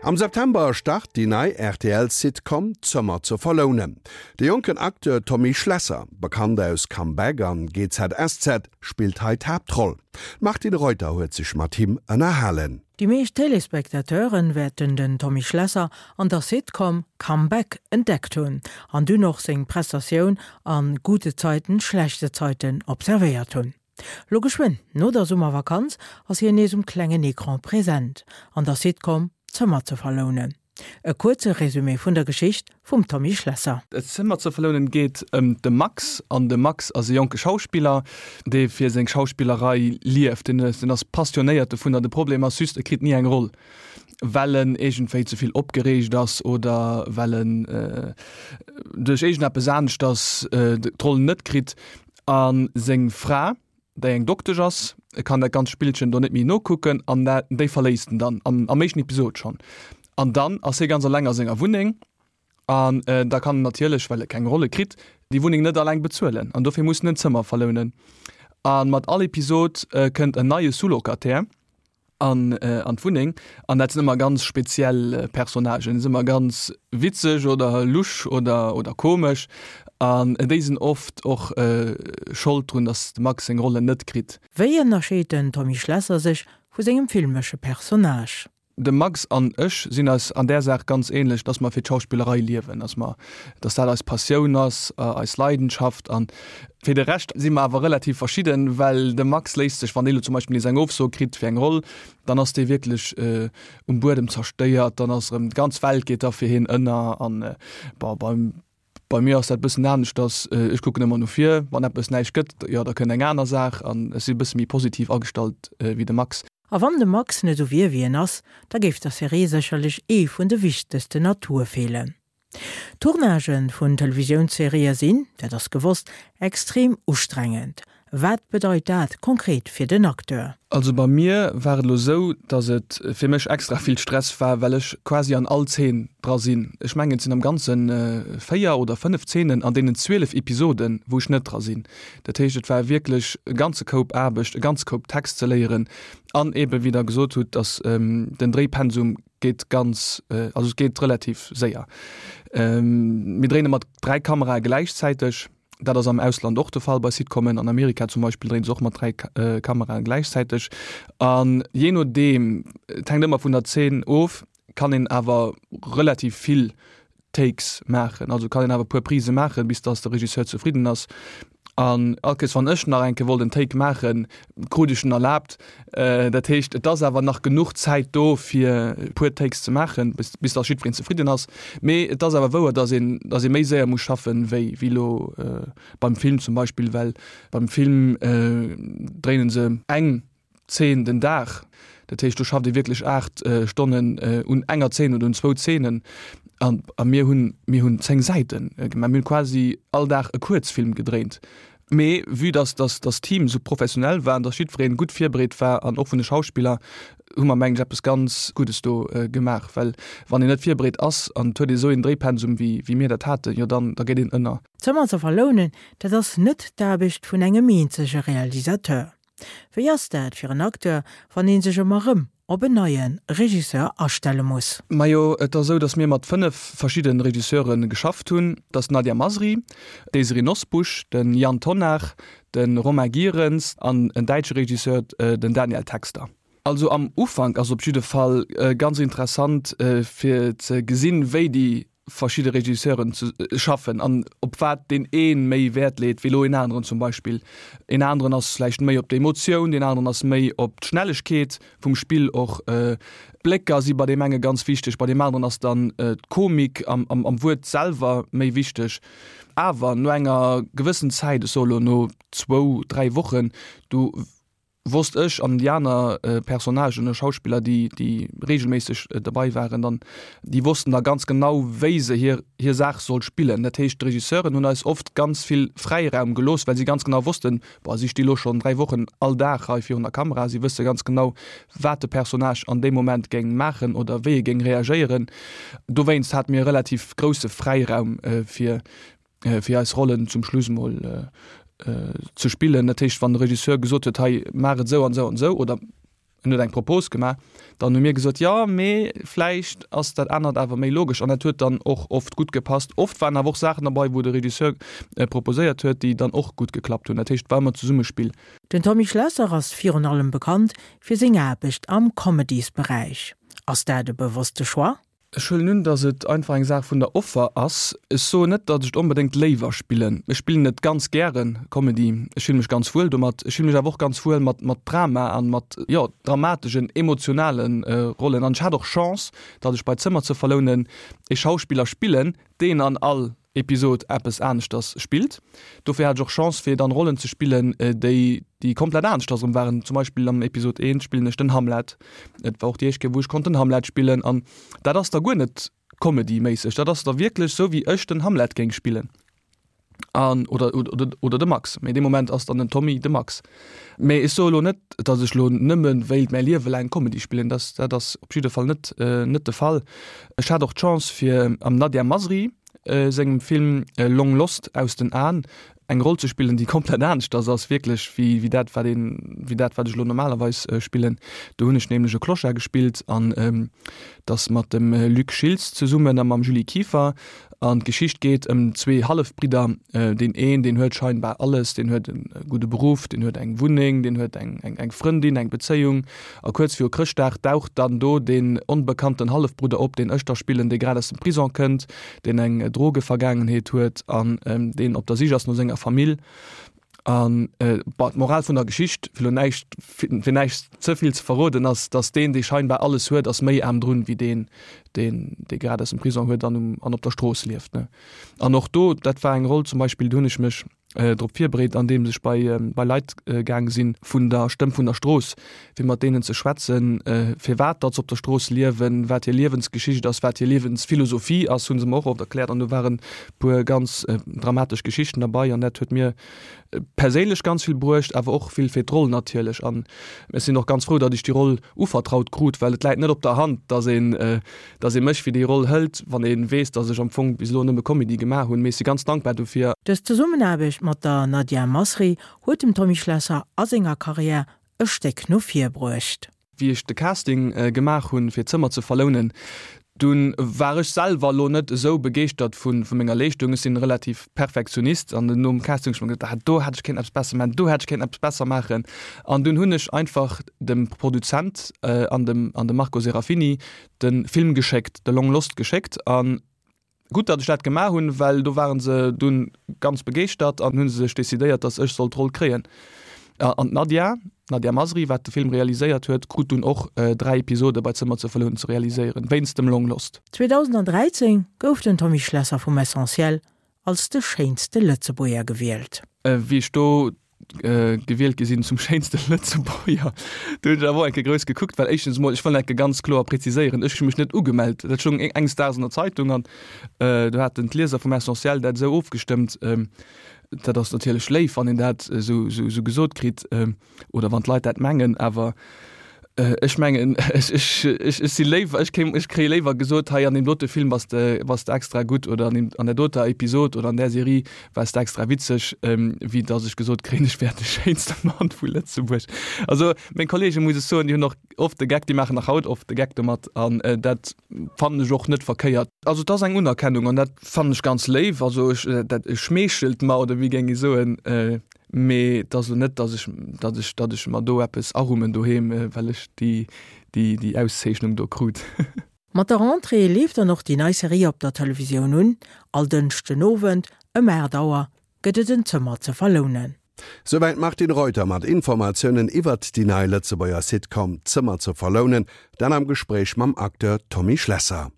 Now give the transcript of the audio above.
Am September start déi nei RTL-Sitcom Zëmmer ze verlounen. De jonken Acteur Tommy Schlesser, bekannt aus Comeback an GZSZ, spillt hei d'Haaptroll. D'Martine Reuter huet sech mat him ënnerhalen. Déi meescht Téléspectateuren wäerten den Tommy Schlesser an der Sitcom Comeback entdeckt hunn an dunn och seng Prestatioun an Gute Zeiten, schlechte Zeiten observéiert hunn. Lo geschwënn no der Summervakanz ass hien nees um klengen Ecran present an der Sitcom Zëmmer ze verlounen. E kuerze Resumé vun der Geschicht vum Tommy Schlesser. Zëmmer ze verlounen geet ëm de Max an de Max ass e jonke Schauspiller, dee fir seng Schauspillerei lieft. Deen ass passionéiert dovunner. De Problem ass just, e kritt ni eng Roll, well en iergendwéi ze vill opgereegt ass oder well en duerch iergendeppes aneschters d'Roll net kritt. A seng Fra, déi eng Doktesch ass, kann dat ganzt Spillchen do net méi nokucken an déi verléisst en dann am am éischten Episod schonn. An dann ass hie ganz eleng a senger Wunneng an da kann en natierlech, well e keng Rolle kritt, déi Wunneng net eleng bezuelen an dofir muss en en Zëmmer verlounen. A mat all Episod kënnt en neie Sous-Locataire. an an d'Wunneng an dat sinn ëmmer ganz speziell Personnagen, sinn ëmmer ganz witzeg oder lusch oder oder komesch an déi sinn oft och Schold drun, datt de Max seng Rollen net kritt. Wéi ënnerscheet den Tommy Schlesser sech vu sengem filmesche Personnage? De Max an ech sinn eis an där Saach ganz ähnlech, dass mer fir d'Schauspillerei liewen, dass mer, dass dat eis Passioun ass, eis Leidenschaft an Fir de Rescht si mer awer relativ verschidden, well de Max léisst sech, wann dee lo zum Beispill nees eng Ofso kritt fir eng Roll, dann ass dee wierklech um Buedem zerstéiert, dann ass erëm d'ganz Welt geet da fir hien ënner an bon, bei bei mir ass dat e bëssen aneschters, ech kucken ëmmer no vir, wann eppes näischt gëtt, jo da kënnt eng aner Saach an ech si e bësse méi positiv agestallt wéi de Max. A wann de Max net esou wier wéi en ass, da géif der Serie sécherlech ee vun de wichtegsten Atoue feelen. Tournagë vun Televisiounsserië sinn, dat ass gewosst, extrem ustrengend. Wat bedeit dat konkret fir den Acteur? Also bei mir war et elo esou, datt et fir mech extra vill Stress war, well ech quasi an all Zeen dra sinn. Ech mengen et sinn am Ganze 4 oder 5 Zeenen an deenen 12 Episoden, wou ech net dra sinn. Dat heescht et war wierklech e ganze Koup Aarbecht, e ganze Koup Text ze léieren an eebe wéi der gesot hutt, datt den Dréipensum geet ganz, also et geet relativ séier. Mir dréine mat 3 Kamerae gläichzäiteg. Dat ass am Ausland och de Fall bei Sitcomen. An Amerika zum Beispill dréine se och mat 3 Kamerae gläichzäiteg. An jee nodeem, et hänkt ëmmer vun der Zeen of, kann een awer relativ vill Takes maachen, also kann een awer e puer Prise maachen, bis dass de Regisseur zefridden ass. An all Kéiers wann ech nach eng Kéier wollt en Take maachen, krut ech en erlaabt. Dat heescht, et ass awer nach genuch Zäit do fir e puer Takes ze maachen, bis bis dass jiddwereen zefridden ass. Mee et ass awer wouer, dass een dass ee méi séier muss schaffen, wéi wéi elo beim Film zum Beispill, well beim Film dréinen se eng Zeen den Dag. Dat heescht, do schafft ee wierklech 8 Stonnen un enger Zeen oder un zwou Zeenen. An a mir hunn, mir hunn 10 Säite gemaach. Mir hunn quasi all Dag e Kuerzfilm gedréint. Mee vue dass dass dass d'Team esou professionell war an dass jiddweree gutt virbereet war an och vun de Schauspiller, hu mer mengen ech eppes ganz Guddes do gemaach. Well wann een net virbereet ass an et huet ee esou een Dréipensum wéi wéi mir dat haten, jo dann da geet een ënner. Zëmmer ze verlounen, dat ass net d'Aarbecht vun engem eenzege Realisateur. Wéi ass dat fir en Acteur, wann ee sech ëmmer rëm op en neie Regisseur astelle muss? Majo, et ass esou, datt mir mat 5 verschidde Regisseure geschafft hunn. Dat ass d'Nadia Masri, d'Désirée Nosbusch, de Yann Tonnar, de Romain Gierens an en däitsche Regisseur, den Daniel Texter. Also am Ufank ass op jidde Fall ganz interessant fir ze gesinn, wéi déi verschidde Regisseuren ze schaffen an op wat deen ee méi Wäert leet wéi elo een aneren zum Beispill. Een aneren ass vläicht méi op d'Emotioun, deen aneren ass méi op d'Schnellegkeet vum Spill och. D'Blécker si bei deem enge ganz wichteg, bei deem aneren ass dann d'Komik am am Wuert selwer méi wichteg. Awer no enger gewëssen Zäit, ech soe elo no zwou, dräi Wochen, du wosst ech an déi aner Personnagen oder Schauspiller, déi, déi regelméisseg derbei waren, dann, déi wossten da ganz genau, wéi se hir, hir Saach soll spillen. Dat heescht, d'Regisseuren hunn eis oft ganz vill Fräiraum gelooss, well si ganz genau wossten, boah, si sti lo schonn 3 Wochen all Dag hei virun der Kamera, si wësse ganz genau, wat de Personnage an deem Moment géing maachen oder wéi e géing reagéieren. Dowéinst hate mir e relativ grousse Fräiraum, fir, fir eis Rollen zum Schluss mol ze spillen. Dat heescht, wann de Regisseur gesot huet, hei maach et esou an esou an esou oder. En huet eng Propos gemaach, dann hu mir gesot, jo, mee vläicht ass dat anert awer méi logesch. An dat huet dann och oft gutt gepasst. Oft waren awer och Saachen derbei, wou de Regisseur proposéiert huet, déi dann och gutt geklappt hunn. Dat heescht, et war ëmmer Zesummespill. Den Tommy Schlesser ass virun allem bekannt fir seng Aarbecht am Comedysberäich. Ass dat e bewosste Choix? Ech huelen un, datt et einfach eng Saach vun der Offer ass. Ech soen net, datt ech et onbedéngt léiwer spillen. Ech spillen et ganz gären, Comedy. Ech fille mech ganz wuel domat. Ech fille mech awer och ganz wuel mat mat Drama an mat, jo, dramategen, emotionale Rollen. An ech hat och Chance, datt ech bei Zëmmer ze verlounen ee Schauspiller spillen, deen an all Episod eppes aneschters spillt. Dofir hat ech och Chance fir dann Rollen ze spillen, déi déi komplett aneschters erëm waren. Zum Beispill am Episod 1 spillen ech den Hamlet. Et war och déi éischt Kéier wou ech konnt den Hamlet spillen an dat ass da guer net Comedy-méisseg, dat ass da wierklech sou wéi ech den Hamlet géing spillen an oder oder oder de Max. Mee dee Moment ass dann den Tommy de Max. Mee ech soe lo net, datt ech lo nëmme wéilt mäi Liewe laang Comedy spillen, dat dat ass op jidde Fall net net de Fall. Ech hat och d'Chance fir am Nadia Masri sengem Film Long Lost, Aus den Aen, eng Roll ze spillen, déi komplett aneschters ass wierklech wéi wéi dat wat een wéi dat wat ech lo normalerweis spillen. Do hunn ech nämlech e Clochard gespillt an dat mat dem Luc Schiltz zesummen a mam Julie Kieffer. An d'Geschicht geet ëm zwee Hallefbridder. Deen een, deen huet scheinbar alles, deen huet e gudde Beruff, deen huet eng Wunneng, deen huet eng eng Frëndin, eng Bezéiung. A kuerz viru Chrëschtdag daucht dann do deen onbekannten Hallefbrudder op, deen ech da spillen, dee grad aus dem Prison kënnt, deen eng Drogevergaangenheet huet an deen op der Sich ass no senger Famill. An bon, d'Moral vun der Geschicht, fir lo näischt, fir näischt ze vill ze verroden, ass, datt deen, dee scheinbar alles huet, ass méi aarm drun, wéi deen, deen, dee grad aus dem Prison huet an um, an op der Strooss lieft, ne. An och do, dat war eng Roll zum Beispill, do hunn ech mech drop virbereet, andeems ech bei, bei Leit gaang sinn vun der Stëmm vun der Strooss, fir mat deenen ze schwätzen, firwat datt se op der Strooss liewen, wat hir Liewensgeschicht ass, wat hir Liewensphilosophie ass, hu se mer och oft erkläert. An do waren e puer ganz dramatesch Geschichten derbei an dat huet mir perséinlech ganz vill bruecht, awer och vill fir d'Roll natierlech. An ech sinn och ganz frou, datt ech déi Roll uvertraut krut, well et läit net op der Hand, datt een, datt ee mech fir déi Roll hëlt, wann ee weess, datt ech am Fong bis elo nëmme Comedy gemaach hunn. Mee ech si ganz dankbar dofir. Dës Zesummenaarbecht mat der Nadia Masri huet dem Tommy Schlesser a senger Karriär e Stéck no vir bruecht. Wéi ech de Casting gemaach hunn, fir d'Zëmmer ze verlounen, dunn war ech selwer elo net esou begeeschtert vu menger Leeschtung. Ech sinn relativ Perfektionist an nom Casting hunn ech mer geduecht, ah do hätt ech kéinten eppes besser maachen, do hätt ech kéinten eppes besser maachen. An dunn hunn ech einfach dem Produzent an dem an dem Marco Serafini de Film geschéckt, de Long Lost geschéckt an Gutt, datt ech dat gemaach hunn, well do ware se dunn ganz begeeschtert an hu sech decidéiert, datt ech sollt d'Roll kréien. An d'Nadia, d'Nadia Masri, wat de Film realiséiert huet, krut dunn och 3 Episode bei Zëmmer ze verlounen ze realiséieren, wéinst dem Long Lost. 2013 gouf den Tommy Schlesser vum Essentiel als de schéinste Lëtzebuerger gewielt. Wéi ech do gewielt gi sinn zum schéinste Lëtzebuerger. Do hunn ech awer och eng Kéier grouss gekuckt, well éischtens emol, ech wëll eng Kéier ganz kloer präziséieren, ech hu mech net ugemellt. Dat stoung enges Daags an der Zeitung an do haten d'Lieser vum Essentiel dat esou ofgestëmmt. Dat ass natierlech léif, wann een dat esou gesot kritt oder wann d'Leit dat mengen, awer Ech mengen, ech, ech, ech, ech si léiwer, ech kéim, ech kréie léiwer gesot, hei an deem dote Film bass de, bass de extra gutt oder an deem, an där doter Episod oder an där Serie waars de extra witzeg, wéi datt ech gesot kréien, ech wär de schéinste Mann vu Lëtzebuerg. Also meng Kollegen, muss ech soen, déi hunn och oft de Geck, déi maachen nach haut oft de Geck domat an dat fannen ech och net verkéiert. Also et ass eng Unerkennung an dat fannen ech ganz léif. Also ech, dat schmeechelt mer oder wéi géing ee soen. Mee et ass elo net, datt ech, datt ech, datt ech mer do eppes arummen doheem, well ech déi, déi, déi Auszeechnung do krut. Mat der Rentrée leeft dann och déi nei Serie op der Televisioun un. All Dënschden Owend ëm 8 Auer gëtt et en Zëmmer ze verlounen. Souwäit d'Martine Reuter mat Informatiounen iwwert déi nei Lëtzebuerger Sitcom Zëmmer ze verlounen, dat am Gespréich mam Acteur Tommy Schlesser.